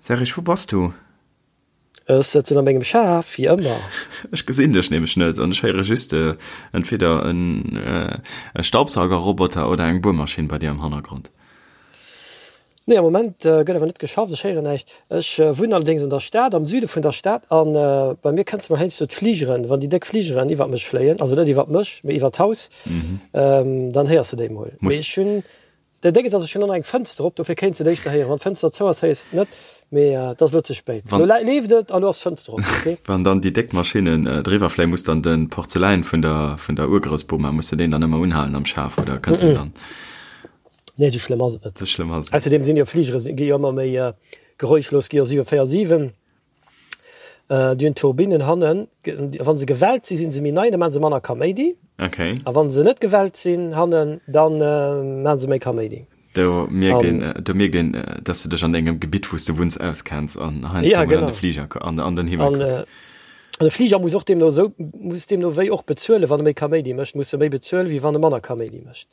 Serge, wou bass du? Ech sëtzen a mengem Schaf, wéi ëmmer. Ech gesinn dech nämlech net an ech héiere just entweder e Staubsaugerroboter oder eng Buermaschinn bei dir am Hannergrond. Nee, am Moment gëtt awer net geschafft, ech héieren näischt. Ech wunnen allerdéngs an der Stad, am Süde vun der Stad a bei mir kënnst de mol heiansdo d'Fligeren, wann déi déck Fligeren iwwert mech fléien, also net iwwert mech, mee iwwert d'Haus, dann héiers de déi mol. Mee ech hunn Den Déngens ass, ech hunn och nach eng Fënster op, dofir kéints de et éischter héieren. Wann d'Fënster zou ass, héiers de et net, mee et ass elo ze spéit. Elo leeft et a lo ass d'Fënster op, ok? Wann dann déi déck Maschinnen driwwer fléien, muss dann de Porzeläin vun der vun der Urgroussboma, muss de deen dann ëmmer unhalen am Schaf oder kënnt deen dann? Nee, esou schlëmm ass et net. Esou schlëmm ass et net. Ausserdeem sinn jo Fligere gi jo ëmmer méi geräuschlos, gi jo 747. Déi hunn Turbinnen hannen. Wa se gewellt sinn, si se méi nei, da maache se manner Kaméidi. Okay. A wa se net gewellt sinn hannen, da maache se méi Kaméidi. Do mierkt een, do mierkt een, dass de dech an dengem Gebitt, wou s de wunns, auskenns an heiansdo ja, mol an de Fliger, an, an den Himmel an, kucks. An de Fliger muss och deemno esou, muss deemno wéi och bezuelen, wann e méi Kaméidi mécht, muss e méi bezuelen, wéi wann e manner Kaméidi mécht.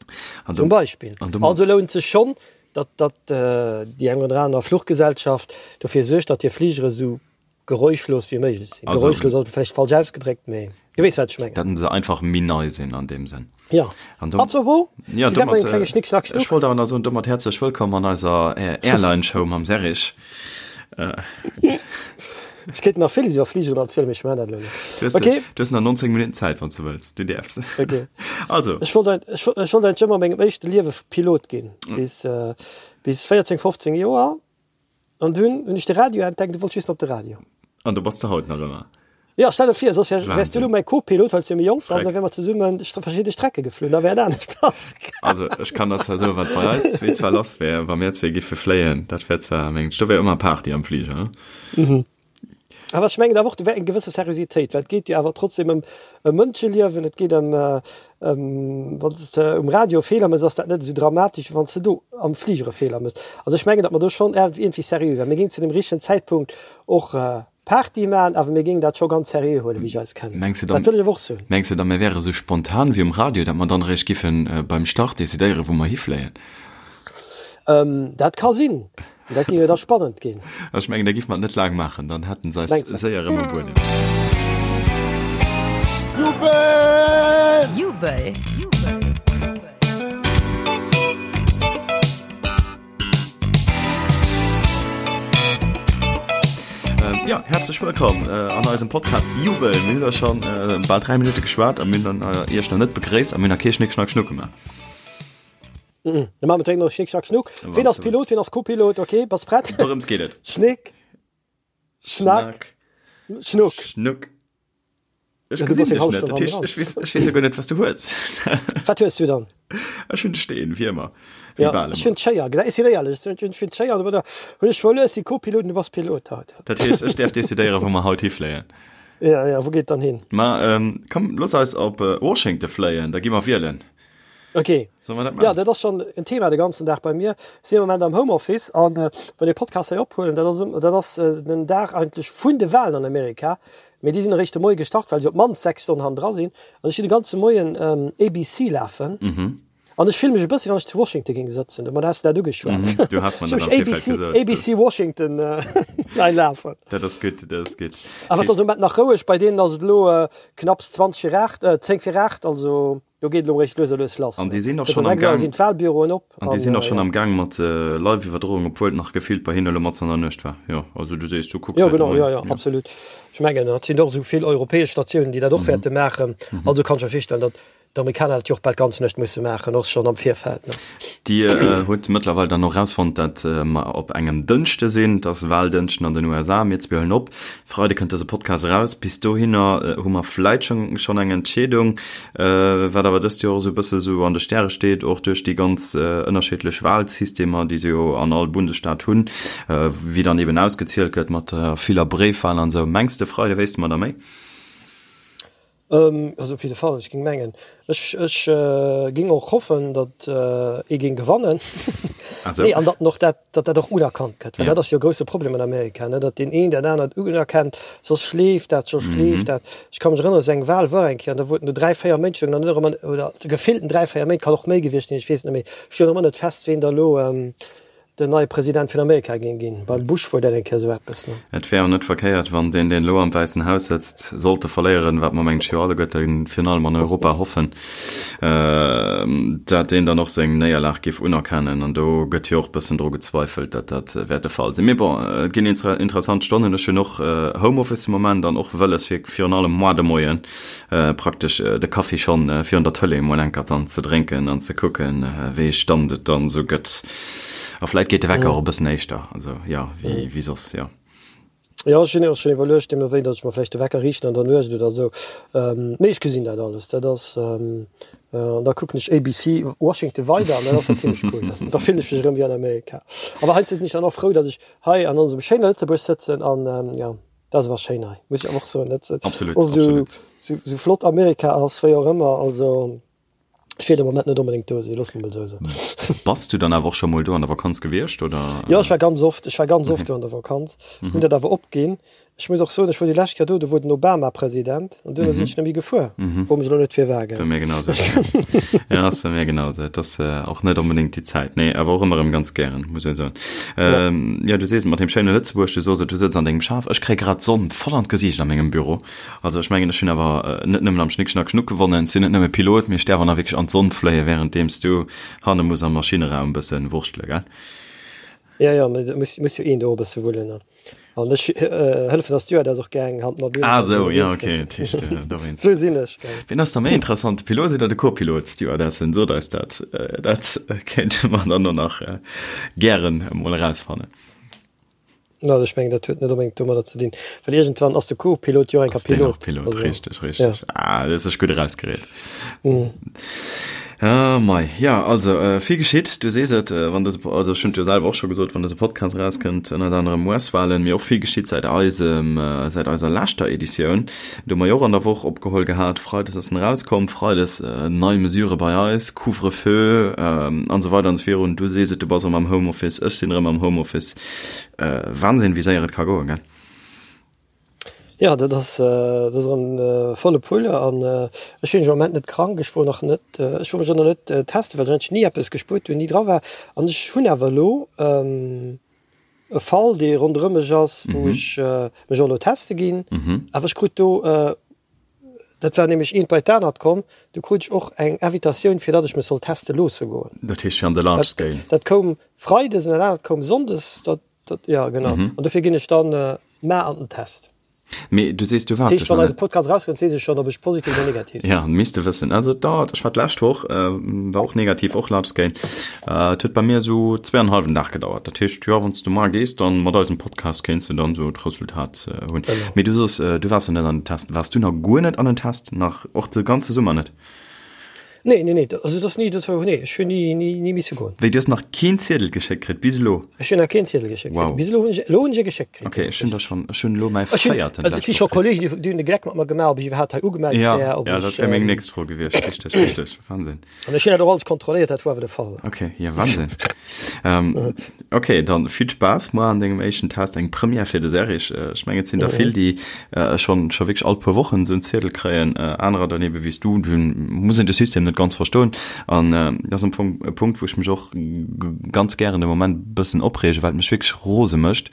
An do, Zum Beispill. An domat. Also lount sech schonn, datt datt déi eng oder aner Fluchgesellschaft dofir suergt, datt hir Fligere sou geräuschlos wéi méiglech sinn. Also, Geräuschlos ass vläicht falsch ausgedréckt, mee du weess wat ech mengen. Datt se einfach méi nei sinn an deem Sënn. Jo. An dom, Apropos, ja, wéi wäert mat domat, engem klenge Schnick, Schnack, ech Schnuck? wollt awer nach soen, domat häerzlech wëllkomm an eiser Airline-Show mam Serrig. Ech kéint nach villes iwwer Fligeren erzielen, mee ech maachen dat elo net. Du hues, Okay. du hues nach 19 Minutten Zäit, wann s du wëlls. Du däerfs. Okay. Also. Ech wollt ein, ech, ech wollt eigentlich ëmmer a mengem éischte Liewe Pilot ginn, bis, äh, bis 14, 15 Joer. An dunn hunn ech de Radio entdeckt, du wollt just op de Radio. An do bass de haut nach ëmmer. Ja, stell der vir, soss wär, wärs du Wahnsinn. elo mäi Co-Pilot, well s du méi jonk bass, Schreck. da wäre mer zesummen verschidde Strecke geflunn, da wär et anescht. Also ech kann der zwar soen, wat bei eis zwee zwar lass wär, wa mir zwee giffe fléien, dat wär zwar, mengen ech, do wär ëmmer Party am Fliger, he? Awer ech mengen awer och, do wär eng gewësse Seriositéit, well et geet jo awer trotzdem ëm ëm Mënscheliewen, et geet ëm ëm, wann s de um Radio e Feeler méchs, ass dat net esou dramatesch, wéi wann s de do am Fliger e Feeler méchs. Also ech mengen, datt mer do schonn iergendwéi seriö wären. Mir géingen zu dem richtegen Zäitpunkt och Party maan, awer mir géingen dat scho ganz seriö huelen, wéi ech eis kennen. Mengs de dann, Dat wëll ech awer och soen. Mengs de dann, mir wäre sou spontan wéi um Radio, datt mer dann eréischt giffen beim Start decidéieren, wou mer hifléien? Dat ka sinn. Dat géing jo da spannend ginn. Ech mengen, da giffe mer et net laang maachen, dann hätten se eis Mengs de? séier erëm um Buedem. Jubel! Jubel! Ja, herzlech wëllkomm an eisem Podcast Jubel. Mir hunn da schon bal 3 Minutte geschwat a mir hunn dann Iech nach net begréisst a mir hunn nach kee Schnick, Schnack, Schnuck gemaach. Mhm. Da maache mer direkt nach Schnick, Schnack, Schnuck. Ween ass Pilot, ween ass Co-Pilot? Okay, bass prett? Dorëms geet et. Schnick, Schnack, Schnuck. Schnuck. Ech Ja, du gesinn bass eng dech half net. Stonn Dat heescht, hannendran. ech weess, ech weess jo guer net, wat s du hues. Wat hues du dann? Ech hunn de Steen, wéi ëmmer. Wéi Ja, bal ech ëmmer. hunn d'Schéier. Ech sinn éierlech, ech hunn d'Schéier. An da hunn ech verluer, ech si Co-Pilot an du bass Pilot haut. Dat heescht, ech däerf decidéieren, wou mer haut hifléien. Ja, ja, wou geet et dann hin? Ma komm, looss eis op Washington fléien, da gi mer wielen. Okay. Solle mer dat Ja, maachen? dat ass schonn en Thema de ganzen Dag bei mir. Ech sinn am Moment am Homeoffice an wann ee Podcast hei ophuelen, dat ass, dat ass den Dag eigentlech vun de Walen an Amerika. Mee déi sinn eréischt de Moie gestart, well se op d'mannst 6 Stonnen hannendra sinn. Also ech hunn de ganze Moien ABC lafen. An ech fille mech e bëssi, wann ech zu Washington géing sëtzen. Domat has de dat ugeschwat. Du has mer Ech dat hu am Virfeld ABC, gesot. ABC Washington hei lafen. Dat ass gutt, dat ass gutt. Awer et ass am Moment nach roueg. Bei deenen ass et elo knapps 20 vir 8, 10 vir 8, also Do geet elo eréischt lues a lues lass. An déi sinn och Zënter schonn am 6 Auer Gaang. sinn d'Wahlbüroen op. An déi sinn och An, schonn ja. am Gaang mat Live-Iwwerdroung, obwuel et nach gefillt bei hinne elo matzen an der Nuecht war. Jo, also du sees, du kucks Jo, hei de genau, Moien. jo, jo, absolut. Ech mengen, et sinn och esou vill europäesch Statiounen, déi dat och wäerte maachen. Also kann ech mer virstellen, datt d'Amerikaner dat jo och bal d'ganz Nuecht musse maachen, och schonn am Virfeld, ne? Dir hutt mëttlerweil dann och rausfonnt, dat mer op engem Dënschde sinn. Et ass Wahldënschden an den USA. Mir zwee huelen op. Freide kënnt dëse Podcast eraus. Bis dohinner hu mer vläit schonn eng Entscheedung. Wat awer dëst Joer esou e bësse sou an de Stäre steet, och duerch déi ganz ënnerschiddlech Wahlsystemer, déi se jo an all Bundesstaat hunn, wéi dann eben ausgezielt gëtt mat der viller Bréifwahl an esou. Mengs de, Freide wéisste mer da méi? Also op jidde Fall, ech géing mengen, ech, ech géing och hoffen, datt ee géing gewannen. Nee, an datt en och dat, datt dat och unerkannt gëtt, well dat ass jo e grousse Problem an Amerika, ne, datt deen een dat anert unerkennt, soss schleeft dat, soss schleeft dat. Ech ka mech erënneren, esou eng Wahl war eng Kéier an da wollten do 3, 4 Méint stoungen dann ëmmer, oder gefillten 3, 4 Méint, kann och méi gewiescht sinn, ech weess et net méi, stoung ëmmer net fest, ween da elo. Den neie President vun Amerika géing ginn. Beim Bush wor dat eng Kéier esou eppes, ne? Et wär och net verkéiert, wann deen, deen elo am Wäissen Haus sëtzt, sollte verléieren, wat mer mengen ech jo alleguerte virun allem an Europa hoffen, dat deen dann och seng Néierlag géif unerkennen. An do gëtt jo och bëssen dru gezweifelt, datt dat wäert de Fall sinn. Mee bon, et ginn interessant Stonnen. Ech hunn och Homeoffice de Moment an och wëlles fir virun allem moar de Moien praktesch de Kaffi schonn virun der Tëlee emol enker dann ze drénken an ze kucken, wéi ee Stand et dann esou gëtt. A vläit geet de Wecker och e bëssen éischter, also jo, wéi, wéi soss, jo. Jo, ech hunn och schonn iwwerluecht, deemno wéi, datt ech mer vläicht de Wecker riichten an der Nuecht oder esou. Mee ech gesinn dat alles, dat ass, an da kucken ech ABC Washington weider an dat ass dann zimlech cool. Da fillen ech mech erëm wéi an Amerika. Awer heiansdo sinn ech dann och frou, datt ech hei an onsem schéine Lëtzebuerg sëtzen an, jo, dat ass awer schéin hei, muss ech awer och soen. Dat Absolut, och esou, absolut. esou, esou flott Amerika ass, wéi och ëmmer, also. Ech wier de Moment net onbedéngt do sinn, loosse mer mol esou soen. Bass du dann awer och scho mol do an der Vakanz gewiescht, oder? Jo, ech war ganz oft, ech war ganz oft do an der Vakanz, hunn dat awer opginn. Ech muss och soen, ech wor déi lescht Kéier do, do wor den Obama President an duerno sinn ech net méi gefuer. Fro mech elo net firwat, gell. Bei mir genau sou. Ja, ass bei mir genau sou. Et ass och net onbedéngt déi Zäit, nee, awer och ëmmer erëm ganz gären, muss een soen. Jo, du sees et mat deem schéine Lëtzebuerg, du soos et, du sëtz an dengem Schaf. Ech kréie grad d'Sonn voll an d'Gesiicht a mengem Büro. Also ech mengen ech hunn awer net nëmmen am Schnick Schnack Schnuck gewonnen, sinn net nëmme Pilot, mee ech däerf och nach wierklech an d'Sonn fléie währenddeems du hanne muss am Maschineraum bëssen wurschtele, gell? Jo, jo, mee et muss, muss jo een do och e bësse wullen, ne? An ech hëllefen der Stewardess och gär eng Hand mat un, Ah sou, jo, ok, dat heescht dowéinst. Sou sinn ech, gell? Wien ass da méi interessant, de Pilot oder de Co-Pilot? Stewardessen, sot eis dat, dat kéinte mer dann och nach gären emol erausfannen. Na, ech mengen, dat huet net onbedéngt domadder ze dinn, well iergendwann ass de Co-Pilot jo och enker Ass deen Pilot. och Pilot, Also, richteg, richteg. ja. Ah, du hues dech gutt erausgereet. Mm. Ah, mei. Ja, also, äh, vill geschitt, du sees et, äh, wann dëse, also ech hunn et jo selwer och scho gesot, wann dëse Podcast erauskënnt, ënnert anerem US-Wahlen, mee och vill geschitt säit eisem, äh, säit eiser leschter Editioun. Do hu mer jo och an der Woch opgeholl gehat, Freides ass en erauskomm, Freides äh, nei Mesure bei eis, Couvre-feu, ähm, an esou weider an esou virun. Du sees et, du bass erëm am Homeoffice, ech sinn erëm am Homeoffice. Wahnsinn, wéi séier et ka goen, gell? Jo, dat ass, dat ass erëm volle Pulle an ech sinn am Moment net krank. Ech wor nach net, ech wor mech och nach net testen, well ech eigentlech ni eppes gespuert hunn, ni dra war. An ech hunn awer elo e Fall, dee ronderëm mech ass, wou ech mech och elo teste ginn. Awer ech krut do, dat war nämlech eent bei d'anert komm, du krut ech och eng Invitatioun, fir datt ech mech soll teste loosse goen. Dat heescht fir an de Large Scale? Dat koum freides an dat anert koum sonndes. Dat, dat, ja genau. Mhm. An dofir ginn ech dann äh, mar an den Test. Mee du sees, du waars dech nach net. Podcast rauskënnt, weess ech schonn, ob ech positiv oder negativ sinn. Ja, misst de wëssen. Also et dauert, ech war d'lescht Woch, äh, war och negativ, och Large Scale. Äh, et huet bei mir esou zweeanenhallwen Dag gedauert. Dat heescht, jo, wann s du mar gees, dann mat eisem Podcast kéints du dann esou d'Resultat äh, hunn. Genau. Mee du soos, äh, du waars jo net an den Test. Waars du nach guer net an den Test? Nach och de ganze Summer net? Nee, nee, nee, also dat ass ni, dat war, nee, ech hunn ni, ni, ni misse goen. Wéi, du hues nach keen Ziedel geschéckt kritt bis elo? Ech hunn nach keen Ziedel geschéckt kritt. Wow. Bis elo hunn ech, elo hunn ech e geschéckt kritt. Ok, ech hunn der schonn, ech hunn elo mäi Ech hunn, véierten also et si d'lescht scho Woch kritt. Kollegen, déi, déi hunn de Gleck mat mer gemaach, ob ech iwwerhaapt hei ugemellt Ja, wär, ob ja, dat ech, wär meng ähm, nächst Fro gewiescht. Richteg, richteg, Wahnsinn. An ech hunn dat och alles kontrolléiert, dat war awer de Fall. Ok, ja, Wahnsinn. Ähm, ok, dann vill Spaass moar an dengem éischten Test, eng Première fir de Serrig. Ech mengen, et sinn der vill, déi schonn scho wierklech all puer Wochen esou en Ziedel kréien, anerer dann ebe wéi s du, do muss een de System net ganz verstoen. An dat ass am Fong e Punkt, wou ech mech och ganz gären de Moment e bëssen opreegen, well et mech wierklech rose mécht.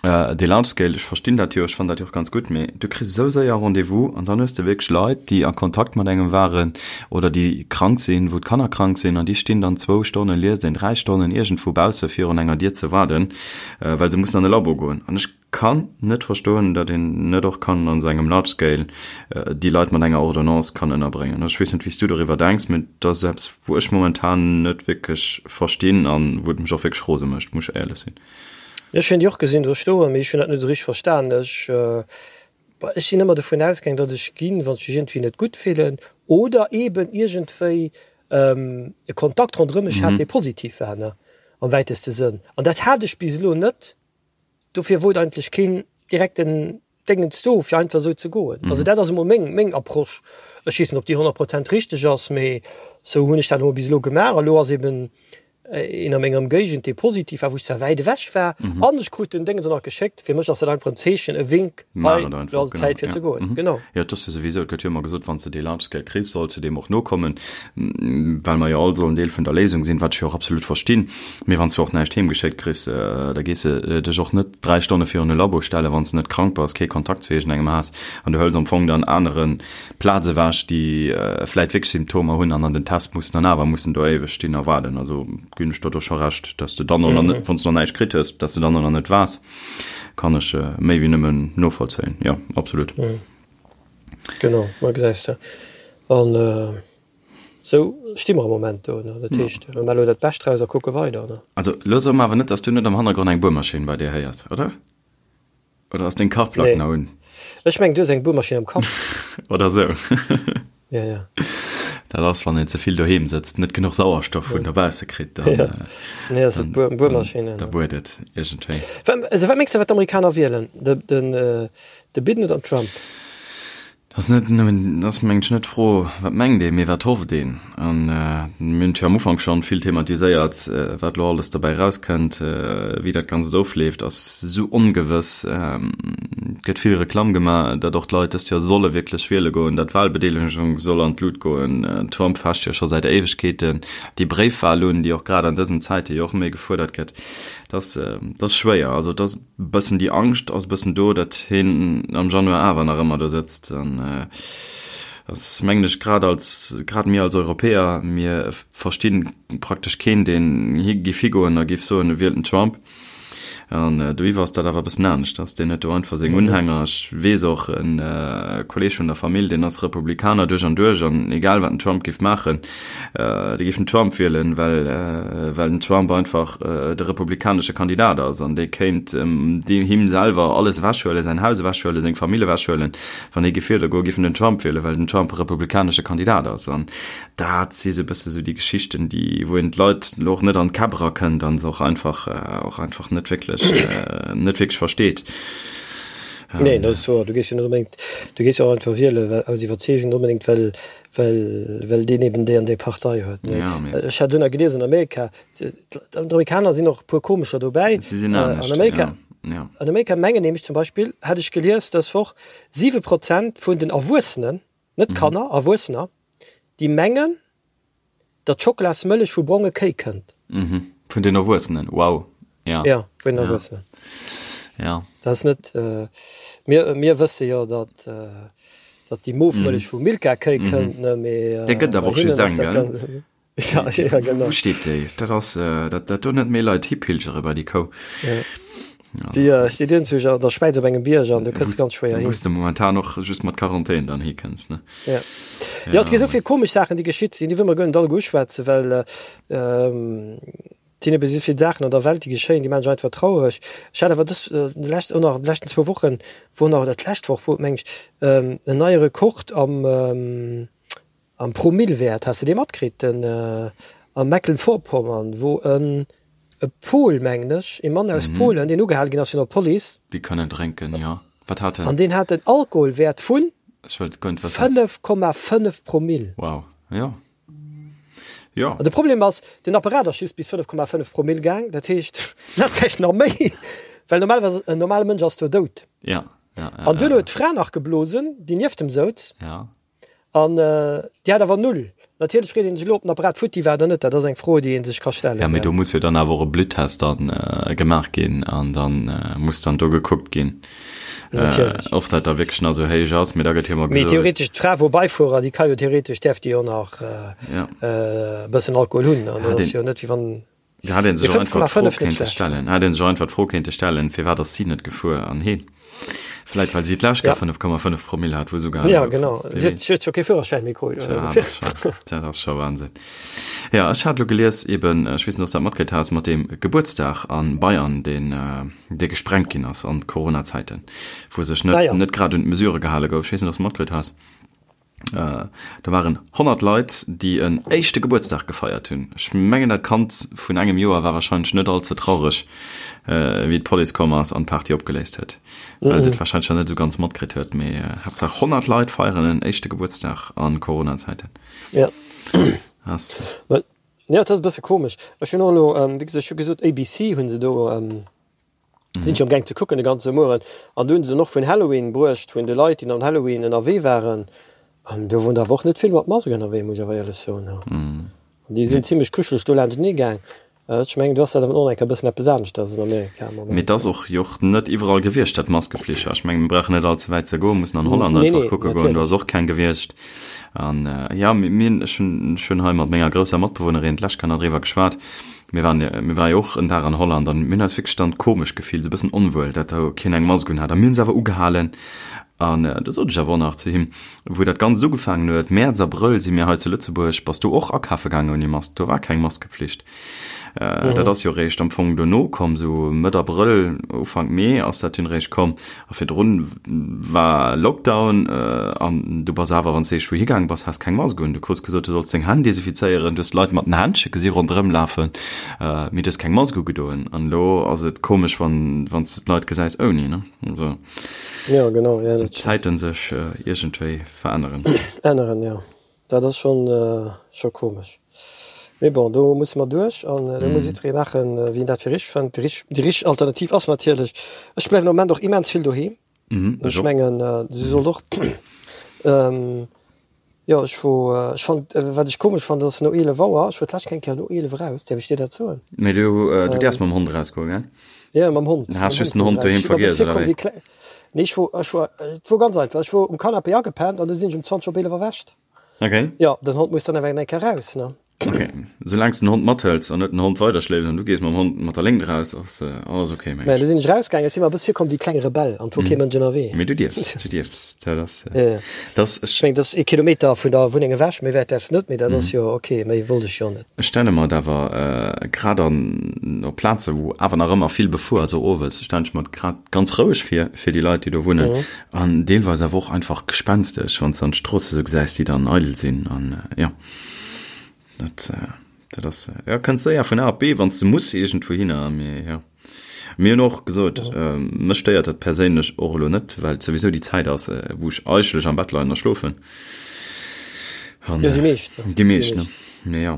Dee Large Scale, ech verstinn dat jo, ech fannen dat jo och ganz gutt, mee du kriss esou séier Rendez-vous an dann hues de wierklech Leit, déi a Kontakt mat engem waren oder déi krank sinn, wou d'Kanner krank sinn an déi stinn dann zwou Stonnen, liest een, dräi Stonnen iergendwou bausse virun enger Dier ze waarden, well se mussen an e Labo goen. An ech kann net verstoen, datt een net och kann an esou engem Large Scale déi Leit mat enger Ordonnance kann ënnerbréngen. Also ech weess net, wéi s du doriwwer denks, mee dat ass eppes, wou ech momentan net wierklech verstinn an wou et mech och wierklech rose mécht, muss ech éierlech sinn. Ech hunn déi och gesinn do stoen, mee ech hunn dat net esou richteg verstan. Ech, ech sinn ëmmer dovun ausgaang, datt ech ginn, wann ech mech iergendwéi net gutt fillen oder eeben iergendwéi e Kontakt ronderëm mech hat, dee positiv war, ne, am wäiteste Sënn. An dat hat ech bis elo net. Dofir wor et eigentlech keen direkten Déngens do, fir einfach esou ze goen. Also dat ass emol meng, meng Approche. Ech weess net, ob déi 100 Prozent richteg ass, mee esou hunn ech dat emol bis elo gemaach. A lo ass eeben. Een a menger Ëmgéigend, dee positiv war, wou ech zwar wäit ewech war, an ech krut den Déngens och nach geschéckt. Fir mech ass dat einfach en Zeechen, e Wink, hei, elo ass et Zäit fir ze goen. Genau. Jo, et ass jo souwisou, et gëtt jo ëmmer gesot, wann s de dee Large Scale kriss, solls de deem och nokommen, well mer jo all sollen Deel vun der Léisung sinn, wat ech jo och absolut verstinn. Mee wann s du och näischt heemgeschéckt kriss, da gees de dech och net 3 Stonne virun e Labo stellen, wann s de net krank bass, kee Kontakt zu iergendengem has an du hëls am Fong dann anere Plaz ewech, déi vläit wierklech Symptomer hunn an an den Test mussen an awer mussen do éiweg stinn a waarden. Also ginn ech der do scho Recht, dass de dann och nach net, wann s de nach näischt kritt hues, dass de dann och nach net waars, kann ech méi wéi nëmmen novollzéien. Jo, absolut. Genau, ma gesäis de. An esou sti mer am Moment do, ne? Dat heescht, mir maache elo dat Bescht draus a kucke weider, ne? Also elo so mer awer net, dass du net am Hannergrond eng Buermaschinn bei dir héiers, oder? Oder ass deng Kachplack Nee. nach un? Ech mengen, du hues eng Buermaschinn am Kapp. Oder sou. Ja, ja. Dat ass, wann een ze vill doheem sëtzt, net genuch Sauerstoff vun dobausse kritt, dann, Ja. äh, Nee, ass dann, et Buer, dann, Buermaschinn. da buert et iergendwéi. Wat, also wat mengs de, wat d'Amerikaner wielen? De, den, äh, de Biden oder den Trump? Dat ass net nëmmen, dat ass mengen ech net d'Fro, wat mengt een, mee wat hofft een. An mir hunn et jo am Ufank schonn vill thematiséiert, wat elo alles dobäi erauskënnt, wéi dat Ganzt ofleeft, ass esou ongewëss. Et gëtt vill Reklamm gemaach, datt och d'Leit dëst Joer solle wierklech wiele goen, datt d'Wahlbedeelegung soll an d'Lut goen. Trump fecht jo scho säit Éiwegkeeten déi Bréifwahl un, déi och grad an dësen Zäite jo och méi gefuerdert gëtt. Dat ass, dat ass schwéier. Also et ass. Bëssen déi Angscht ass bëssen do, datt hien am Januar awer nach ëmmer do sëtzt. An ass mengen ech grad als, grad mir als Europäer, mir versti praktesch keen, deen hi giff higoen a giff soen, e wielt den Trump. An doiwwer ass dat awer e bëssen aneschters. Deen huet do einfach seng Unhänger. Ech weess och, e Kolleeg vun der Famill, deen ass Republikaner duerch an duerch an egal wat den Trump giff maachen, Déi géifen Trump wielen, well well den Trump einfach de republikanesche Kandidat ass an dee kéint deem him selwer alles ewechhuelen, säin Haus ewechhuelen, seng Famill ewechhuelen. Wann hie géif wiele goen, géif en den Trump wielen, well den Trump e republikanesche Kandidat ass. An dat si sou e bësse sou déi Geschichten, déi wou een d'Leit elo och net an d'Käpp erakënnt an se och einfach och einfach net wierklech net wierklech versteet. Nee, dat ass wouer. Du géifs jo net onbedéngt, du géifs jo och einfach wielen, well aus Iwwerzeegung, net onbedéngt well Well, well deen eben déi an déi Partei huet. Nee. Ja, mee. Ech hat dunner gelies an Amerika, d'Amerikaner sinn och e puer komescher dobäi. Si sinn Äh, an anescht, Amerika, ja, ja. an Amerika mengen nämlech zum Beispill, hat ech gelies dës Woch, 7 Prozent vun den Erwuessenen, net Kanner, Erwuessener, déi mengen, datt Schokolasmëllech vu bronge Kéi kënnt. Mhm. Vun den Erwuessenen, wow. Ja. Ja, vun den Ja. Erwuessenen. Ja. Dat ass net, äh, mir, mir wësse jo, datt, äh, datt déi Mofmëllech vu Milka-Kéi kënnt, ne, mee, äh, Där gëtt awer bei och just hinnen ass eng, dat gell? ganz, ja, ja, genau. Wou steet déi? Dat ass, äh, dat, dat do net méi Leit hipilgere bei déi Kou. Ja. Déi äh, steet iergendwou an der Schwäiz op engem Bierg an du kënns ganz schwéier hin. Wou s de momentan och just mat Quarantän dann hikënns, ne? Ja. Ja, et gi esou vill komesch Saachen, déi geschitt sinn, déi wëll mer guer net alleguer uschwätzen, well, ähm, Et sinn ebe esou vill Saachen an der Welt, déi geschéien, déi maachen mech einfach traureg. Ech hat awer dës, déi lescht, och nach déi leschten zwou Wochen, wor nach, oder d'lescht Woch wor et, meng ech, en neie Rekord am, am Promillewäert. Has de dee matkritt? Den, a Mecklenburg-Vorpommern, wou en, e Pol, mengen ech, ee Mann aus Polen, deen ugehale ginn ass vun der Police. Déi kënnen drénken, jo. Wat hat en? An deen hat en Alkoholwäert vun Ech wëllt guer net wëssen. 5,5 Promill. Wow, jo. Jo. An de Problem ass, den Apparat ass just bis 5,5 Promill gaang, dat heescht, en hat vläicht nach méi, well normalerweis en normale Mënsch ass do dout. Ja, ja, ja. An duerno huet d'Fra nach geblosen, déi nieft em souz. Ja. An déi hat awer null. Natierlech freet een sech elo, ob den Apparat futti war oder net. Dat ass eng Fro, déi ee sech ka stellen. Ja, mee do muss jo dann awer och e Bluttest dann gemaach ginn an dann muss dann do gekuckt ginn. Natierlech. Ob dat da wierklech nach esou héich ass, mee da gëtt jo ëmmer Mee gesot. theoretesch d'Fra vum Beifuerer, déi ka jo theoretesch, däerf déi jo nach Ja. e bëssen Alkohol hunn. An dat Hat ass een, jo net wéi wann. da hat een Mee sech och einfach d'Fro 5,5 net kéinte schlecht. stellen, hat een sech och einfach d'Fro kéinte stellen, firwat ass si net gefuer an heen? Vläit well si d'lescht Ja. Kéier 5,5 Promille hat, wou se ugehale Ja, gouf. genau. Wie Si huet weess. si huet jo kee Führerschäin méi krut, Tja, oder? dat ass scho, dat ass scho Wahnsinn. Ja, ech hat elo gelies eben, ech weess net, ob s dat matkritt has, mat deem Gebuertsdag a Bayern, deen, dee gesprengt ginn ass an Corona-Zäiten, wou sech net, Ah ja. net grad un d'Mesurë gehale gouf. Ech weess net, ob s de matkritt has. Do waren 100 Leit, déi en éischte Gebuertsdag gefeiert hunn. Ech mengen, dat Kand vun engem Joer war warscheinlech net all ze traureg, wéi d'Police komm ass an d'Party opgeléist huet, well et et warscheinlech nach net esou ganz matkritt huet. Mee Haaptsaach 100 Leit feieren en éischte Gebuertsdag a Corona-Zäiten. Ja. Ass. Jo, et ass e bësse komesch. Ech hunn och elo, wéi gesot, ech hu gesot, ABC hu se do, sinn ech amgaang ze kucken de ganze Mueren. An do hu se dann och vun Halloween bruecht, vun de Leit, déi an Halloween ënnerwee waren. An do woren der awer och net vill mat Mask ënnerwee, muss ech awer éierlech soen. An déi sinn zimlech kuscheleg do laanschtenee gaang. Ech mengen, do ass dat awer och nach eng Kéier e bëssen eppes aneschters an Amerika am Moment. Mee et ass och jo och net iwwerall gewiescht, dat Maskeflicht war. Ech mengen, mir brauchen net all ze wäit ze goen, mussen an Holland einfach kucke goen, do ass och keng gewiescht. An jo, mir, ech hunn, ech hunn hei mat menger grousser Matbewunnerin d'lescht Kéier nach driwwer geschwat, mir waren, mir ware jo och en Dag an Holland an mir hunn eis wierklech dann komesch gefillt, esou e bëssen onwuel, dat do keen eng Mask unhat. A mir hunn se awer ugehalen. An do sot ech awer och nach zu him, wou dat Ganzt ugefaangen huet, Mäerz, Abrëll si mir hei zu Lëtzebuerg, bass du och akafe gaangen ouni Mask? Do war keng Maskepflicht. Dat ass jo réischt am Fong dono komm, sou Mëtt Abrëll, Ufank Mee ass dat dunn réischt komm. A virdrun war Lockdown an du bass awer, wann s de iergendwou higaange bass, has keng Mask un. Du krus gesot, du solls deng Hänn desinfizéieren, du hues d'Leit mat den Händche gesi ronderëm lafen, mee du hues keng Mask ugedoen. An elo ass et komesch, wann wann s de d'Leit gesäis ouni, ne? Also Ja, genau, ja, dat stimmt. d'Zäiten sech iergendwéi veränneren. Änneren, ja. Dat ass schonn scho komesch. Mee bon, do musse mer duerch an do muss jiddweree maachen, wéi en dat fir richteg fënnt. Déi richteg, déi richteg Alternativ ass natierlech, ech bleiwen am Moment och immens vill doheem. Ech mengen, si sollt och, jo, ech wor, ech fand, wat ech komesch fand, ass no 11 Auer, ech wor d'lescht eng Kéier no 11 eraus, däerf ech dir dat soen? Mee du, du däerfs mam Hond erausgoen, gell? Jo, mam Hond. Du has just den Hond doheem vergiess, oder wéi? Nee, ech wor, ech wor, et wor ganz einfach, ech wor um Canapé agepennt an du sinn ech um 20 op 11 erwächt. Okay. Jo, den Hond muss dann awer eng Kéier raus, ne? Okay, soulaang s de den Hond mathëls an net den Hond weiderschléifs an du gees mam Hond mat der Léngt eraus, ass alles okay, meng ech. Mä du sinn ech rausgaangen, ech si mer e bësse virkomm wéi e klenge Rebell an et wor kee Mënsch ënnerwee. Mee du dierfs, du dierfs, dat ass, dat ass, ech. Ech mengen, dat ass ee Kilometer vun der Wunneng ewech, méi wäit däerfs net, mee dat ass jo okay, méi wollt ech jo net. Ech stelle mer et awer grad an op Plaze wou awer nach ëmmer vill befuer ass, och owes, stellen ech mer et grad ganz roueg vir, fir déi Leit déi do wunnen an deelweis awer och einfach gespenstesch, wann s de an d'Stroosse sou gesäis, déi dann eidel sinn an jo dat dat ass jo kënns séier vun A op B, wann s de muss iergendwouhinner, mee jo. Mir hunn och gesot, mech stéiert dat perséinlech och elo net, well et souwisou déi Zäit ass, wou ech eigentlech am Bett leien a schlofen. An, jo, déi meescht. Déi meescht, ne? Mee jo.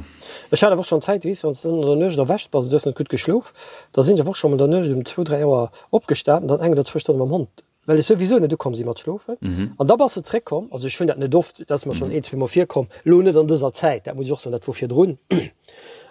Ech hat awer och schonn Zäite, weess de, wann s de dann an der Nuecht erwächt bass, du hues net gutt geschlof, da sinn ech awer och scho mol an der Nuecht um zwou, dräi Auer opgestan an dann eng oder zwou Stonne mam Hond well ech souwisou net ukomm si mat schlofen. An da bass de zréckkomm, also ech hunn dat net oft, dat ass mer schonn een, zweemol virkomm, elo net an dëser Zäit, dat muss ech och soen, dat wor virdrun.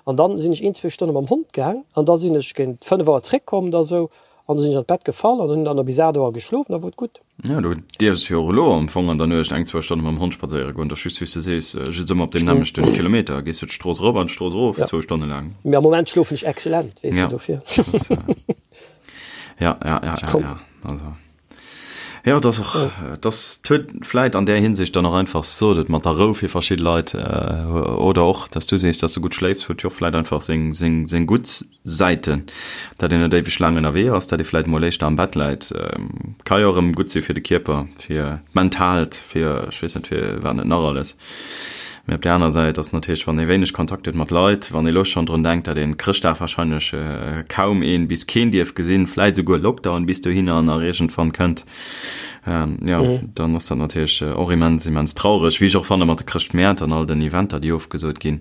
An dann sinn ech een, zwou Stonne mam Hond gaang an da sinn ech géint 5 Auer zréckkomm da sou an da sinn ech an d'Bett gefall an hunn dann nach bis 8 Auer geschlof an da wor et gutt. Jo, du dierfs jo och elo am Fong an der Nuecht eng, zwou Stonne mam Hond spadséiere goen, dat ass just wéi s de sees, just ëmmer op deem nämmlechten Kilometer, gees du d'Strooss erop an d'Strooss erof, zwou Stonne laang. Mee am Moment schlofen ech excellent, weess de, dofir. Ja, ja, ja, ja, ja. Also. Ja, das och das huet vläit an där Hinsicht dann och einfach sot et mat der Rou fir verschidde Leit äh, oder och, dass du sees, dass du gutt schléifs, huet jo och vläit einfach seng, seng, seng gutt Säiten, dat een net éiweg laang ënnerwee ass, dat ee vläit mol éischter am Bett läit. Ähm, ka jo erëm gutt si fir de Kierper, fir d'Mentaalt, fir ech weess net fir wat net nach alles. Mee op där aner Säit ass natierlech, wann ee wéineg Kontakt huet mat Leit, wann ee lo schonn drun denkt, datt een Chrëschtdag warscheinlech kaum een bis keen dierf gesinn, vläit esouguer Lockdown bis dohinner nach iergendwann kënnt, jo, dann ass dat natierlech och immens, immens traureg. Wéi ech och fanne mat de Chrëschtmäert an all den Eventer, déi ofgesot ginn,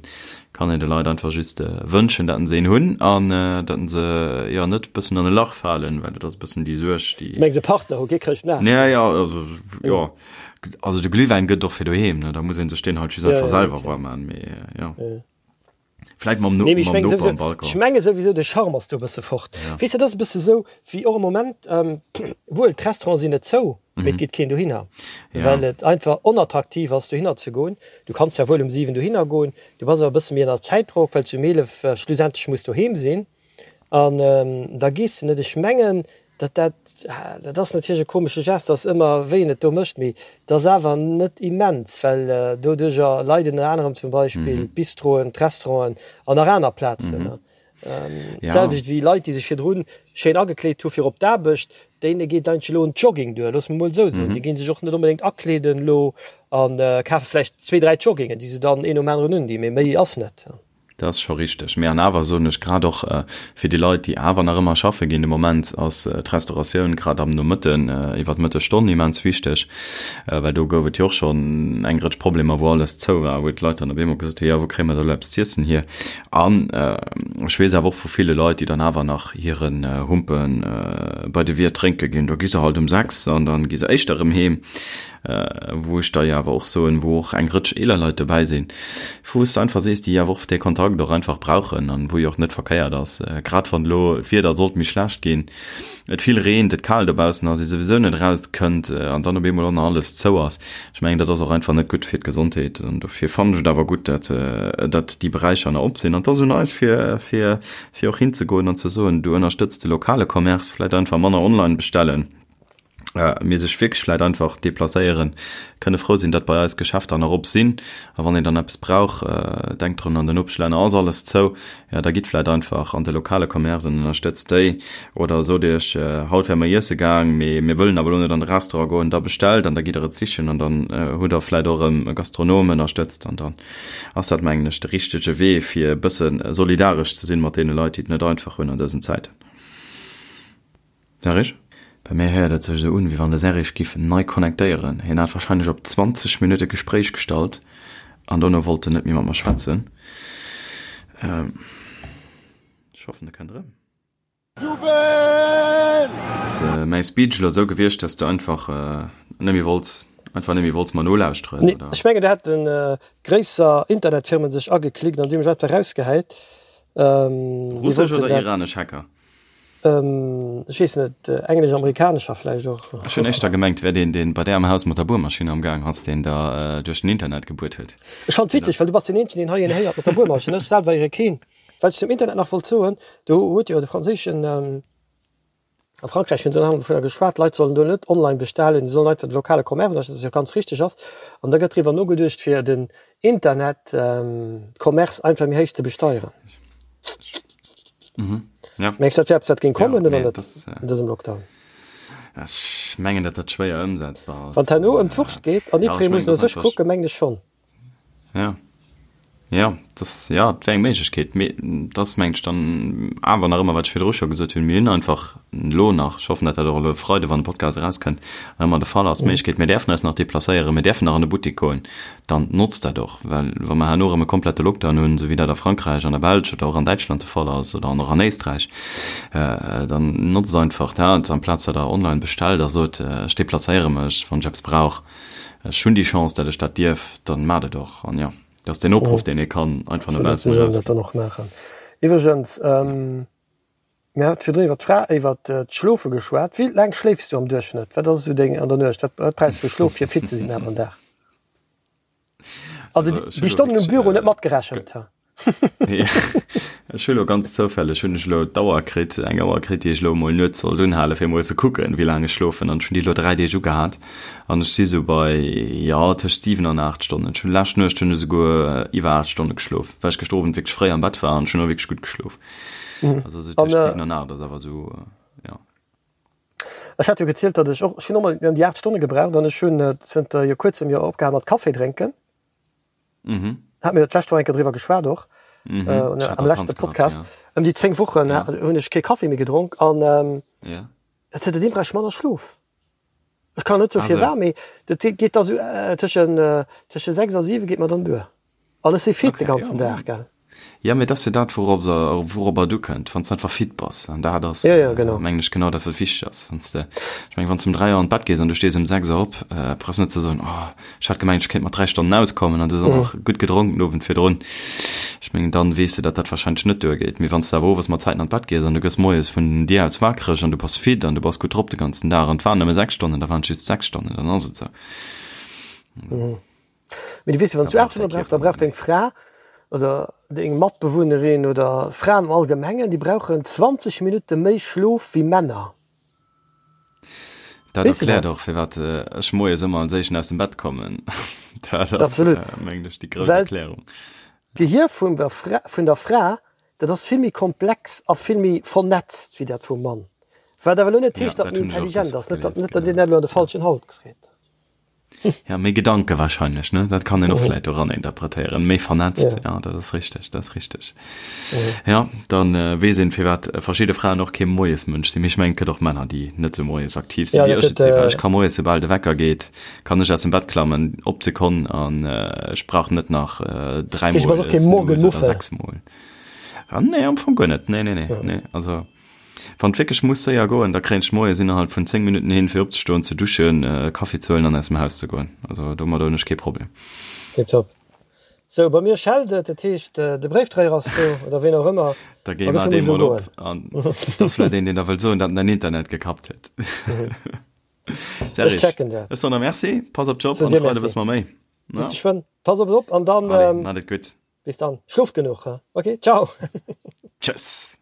kann een de Leit einfach just wënschen, datt se een hunn an datt se, jo, net e bëssen an e Lach falen, well dat ass e bëssen déi Suerg, déi. Du mengs e Partner hu, kee Chrëschtmaart? Ja, jo, also, jo. Also de Glühwäin gëtt och fir doheem, ne? Da muss een sech deen halt just einfach selwer warm man, mee jo. Vläit mam, nee, mam Noper am Balcon. Ech menge souwisou de Charme ass do e bësse fort. Ja. Weess de, dat ass e bësse sou wéi och am Moment, ähm, wuel d'Restaurante sinn net zou, mee et geet keen dohinner, ja. well et einfach onattraktiv ass dohinner ze goen. Du kanns ja wuel um 7 dohinner goen, du bass awer e bësse méi ënner Zäitdrock, well s du um 11 schlussendlech muss doheem sinn. An da gees de net. Ech mengen, datt dat, dat ass natierlech e komesche Geste, ass ëmmer wéi een et do mécht, mee et ass awer net immens, well doduerjer leiden ënner anerem zum Beispill d'Bistroen, d'Restauranten an nach aner Plazen. D'selwecht wéi Leit, déi sech virdru schéin agekleet hu fir op d'Aarbecht, deene geet eigentlech elo en Jogging duer, loosse mer mol esou soen. Déi gi sech och net onbedéngt akleeden elo a kafe vläicht zwee, dräi Joggingen, déi se dann een nom aneren undinn, mee méi ass net. Dat ass scho richteg. Mee an awer soen ech, grad och fir déi Leit, déi awer nach ëmmer schaffe ginn, de Moment ass d'Restauratioun grad am Nomëtten, iwwer d'Mëttesstonn immens wichteg, well do gouf et jo och schonn eng Rëtsch Problemer, wou alles zou war, wou d'Leit dann op eemol gesot hunn, jo wou kréie mer da elo eppes z'iessen hier? An ech weess awer och vu ville Leit, déi dann awer nach hiren Humpe bei de Wiert drénke ginn, do gi se halt um 6 an dann gi se éischter erëm heem. Wou ech der jo awer och soen, wou och eng Rëtsch eeler Leit dobäi sinn, wou s de einfach sees, déi awer och dee Kontakt och einfach brauchen an wou jo och net verkéiert ass, grad wann elo d'Wieder sollt méi schlecht ginn, et vill reent, et kal dobaussen ass, ee souwisou net eraus kënnt an dann op eemol och nach alles zou ass. Ech mengen, dat ass och einfach net gutt fir d'Gesondheet an dofir fannen ech et awer gutt, dat dat déi Beräicher nach op sinn. An et ass un eis, fir fir fir och hinzegoen an ze soen, du ënnerstëtz de lokale Commerce, vläicht einfach manner online bestellen. Mee sech wierklech vläit einfach deplacéieren, kënne frou sinn, datt bei eis Geschäfter nach op sinn. A wann een dann eppes brauch, denkt drun, an den Nopeschlänner ass alles zou, jo da gitt vläit einfach an de lokale Commerce an ënnerstëtzt déi. Oder sot iech, haut wäre mer iesse gaang, mee mir wëllen awer elo net an de Restaurant goen, da bestellt an da gitt der et sichen an dann hutt der vläit och erëm e Gastronom ënnerstëtzt. An dann ass dat, mengen ech, de richtege Wee, fir e bësse solidaresch ze sinn mat deene Leit, déi et net einfach hunn an dësen Zäiten. Serge? Bei mir héiert et sech esou un, wéi wann de Serge giff nei connectéieren. Hien hat wahrscheinlech op 20 Minutte Gespréich gestallt an dono wollt en net méi mat mer schwätzen. Ech hoffen, e kënnt erëm. Jubel! Ass mäi Speech elo esou gewiescht, dass du einfach net méi wollts, einfach net méi wollts mer nolauschteren, Nee, oder? ech mengen, do hätte gréisser Internetfirmen sech ageklickt an déi hu mech einfach erausgehäit. Déi Russesch wollten oder dat. iranesch Hacker? Ech weess net, englesch-amerikanescher vläicht och. Ech hunn éischter gemengt, wär deen, deen bei där am Haus mat der Buermaschinn am Gaang ass, deen der duerch den Internet gebuert huet. Ech fannen et witzeg, well du bass deen eenzegen, deen hei een héiert mat der Buermaschinn, ech selwer héiere keen. Wat ech zum Internet nach wollt soen, do huet jo de franséischen, a Frankräich hunn se ënner anerem dovunner geschwat, d'Leit sollen do net online bestellen, déi sollen einfach de lokale Commerce ënnerstëtzen, wat jo ganz richteg ass. An da gëtt driwwer nogeduecht, fir den Internet-Commerce einfach méi héich ze besteieren. Mhm. Ja. Mengs du, dat wär eppes, wat géing Ja, kommen oder nee, net das, äh, an dësem Lockdown? Ech mengen, datt dat schwéier ëmsetzbar ass. Wann et herno ëm d'Wurscht geet an Ja, ech jiddweree mengen, muss no dat ass sech einfach. kucken, mengen ech schonn. Ja. Ja, das, ja, dat wär eng Méiglechkeet. Mee dat ass, mengen ech, dann awer nach ëmmer, wat ech virdru scho gesot hunn, mir hunn einfach elo nach, ech hoffen, datt dat och elo e Freide, wann de Podcast erauskënnt, nach ëmmer de Fall ass, d'Méiglechkeet, mir däerfen eis nach deplacéieren, mir däerfen nach an de Buttek goen. dann notzt dat och, well wa mer herno erëm e komplette Lockdown hunn, esou wéi dat a Frankräich, an der Belsch oder och an Däitschland de Fall ass oder an och an Éisträich, dann notzt einfach dat, amplaz datt Der online bestellt a sot, ech deplacéiere mech, wann ech eppes brauch, ech hunn déi Chance, datt ech dat dierf, dann maacht et och. An jo, dat ass deen Opruff, deen ee kann einfach no Absolut, baussen mir sollen dat erausginn. dann och maachen. Iwwregens, mir hate virdrun iwwer d'Fra, iwwer d'Schlofe geschwat. Wéi laang schléifs du am Duerchschnëtt? Wat ass esou deng an der Nuecht? Wat wat brauchs du fir Schlof, fir fit ze sinn awer am Dag? Also Also ech déi hu lo Stonnen um wierklech, Büro net matgerechent. Ja, ech hu lo ganz zoufälleg hunn ech elo d'Auer kritt, eng Auer kritt, déi ech elo emol nuets sollt unhalen, fir emol ze kucken, wéi laang ech schlofen. An ech hunn déi elo 3 Deeg ugehat an ech si sou bei, jo, tëscht 7 an 8 Stonnen. Ech hunn lescht Nuecht hunn ech esouguer iwwer 8 Stonne geschlof, well ech gëschter Owend wierklech fréi am Bett war an ech hunn och wierklech gutt geschlof. Also sou An tëscht 7 an 8 ass awer sou, jo. Ech hat jo gezielt, datt ech och, ech hunn och mol ëm déi 8 Stonne gebraucht an ech hunn zënter jo kuerzem jo opgehal mat Kaffi drénken. Mhm. Hat mir jo d'lescht Woch eng Kéier driwwer geschwat och, Mhm. äh, Ech hat am leschte Vakanz gehabt, Podcast. ja. Ëm déi 10 Wochen Ja. hunn ech kee Kaffi méi gedronk an ähm, Ja. zënterdeem brauch ech manner Schlof. Ech kann net soe Ah, sou. firwat, mee dat geet da sou tëschen, tësche 6 a 7 geet mer dann duer. An ech si fit de Okay, ganzen ja. Dag, gell. Ja, mee dat ass jo dat, wourop, wouropper et ukënnt, wann s de einfach fit bass. An dat ass, Ja, ja, genau. mengen ech, genau dat, wat wichteg ass. Wann s de, ech mengen, wann s de um 3 Auer an d'Bett gees an du stees um 6 Auer op, brauchs net ze soen, Oh, ech hat gemengt, ech kéint mat 3 Stonnen auskommen an du hues och nach gutt gedronk den Owend virdrun. Ech mengen, dann weess de, datt dat warscheinlech net duergeet. Mee wann s de awer owes mat Zäiten an d'Bett gees an du gëss moies vun dir aus wakereg an du bass fit an du bass gutt drop de ganzen Dag an et waren nëmme 6 Stonnen, da waren et just 6 Stonnen, dann ass et esou. Mee du weess jo, wann s Da du 8 brauch däi Stonne brauchs, Kierper da brauch net méi. deng Fra oder deng Matbewunnerin oder Fraen am Allgemengen, déi brauchen 20 Minutte méi Schlof wéi Männer. Dat Weess de erkläert dat? och, firwat ech moies ëmmer als Éischten aus dem Bett kommen. Dat ass, Absolut. mengen ech, déi grouss Well Erklärung. d'Gehir vun der Fra, vun der Fra, dat ass vill méi komplex a vill méi vernetzt wéi dat vum Mann. Wat awer elo net Ja, heescht, datt dat méi hunn ech och intelligent dës ass, Woch net datt, gelies, net datt een genau. dat elo an de Ja. falschen Hals kritt. Ja, méi Gedanke wahrscheinlech, ne? Dat kann een och vläit doran interpretéieren. Méi vernetzt, ja, dat ass richteg, dat ass richteg. Ja, dann weess een, firwat verschidde Fraen och kee Moiesmënsch sinn. Mee ech mengen, et gëtt och Männer, déi net sou moies aktiv sinn, wéi ech et sinn. Well ech ka moies, soubal de Wecker geet, kann ech aus dem Bett klammen, op d'Sekonn, an ech brauch net nach dräimol Snooze oder sechsmol. Nee, am Fong guer net. Nee, nee, nee, nee. Also. Wann et wierklech muss séier goen, da kréien ech moies innerhalb vun 10 Minutten hin, fir opzestoen, ze duschen, Kaffi ze huelen an aus dem Haus ze goen. Also domadder hunn ech kee Problem. Tiptop. Sou, bei mir schellt et, dat heescht de Bréifdréier ass do, oder ween och ëmmer. Da géi mar dee mol op an et ass vläit een, deen der wëllt soen, datt en däin Internet gekappt huet. Ech checken dat. Ech soen der Merci, pass op dech op an de Freide wësse mer méi. Bis geschwënn. Pass op dech op an dann. Allez, maacht et gutt. Bis dann. Schloft genuch, he? Ok, ciao. Tschëss.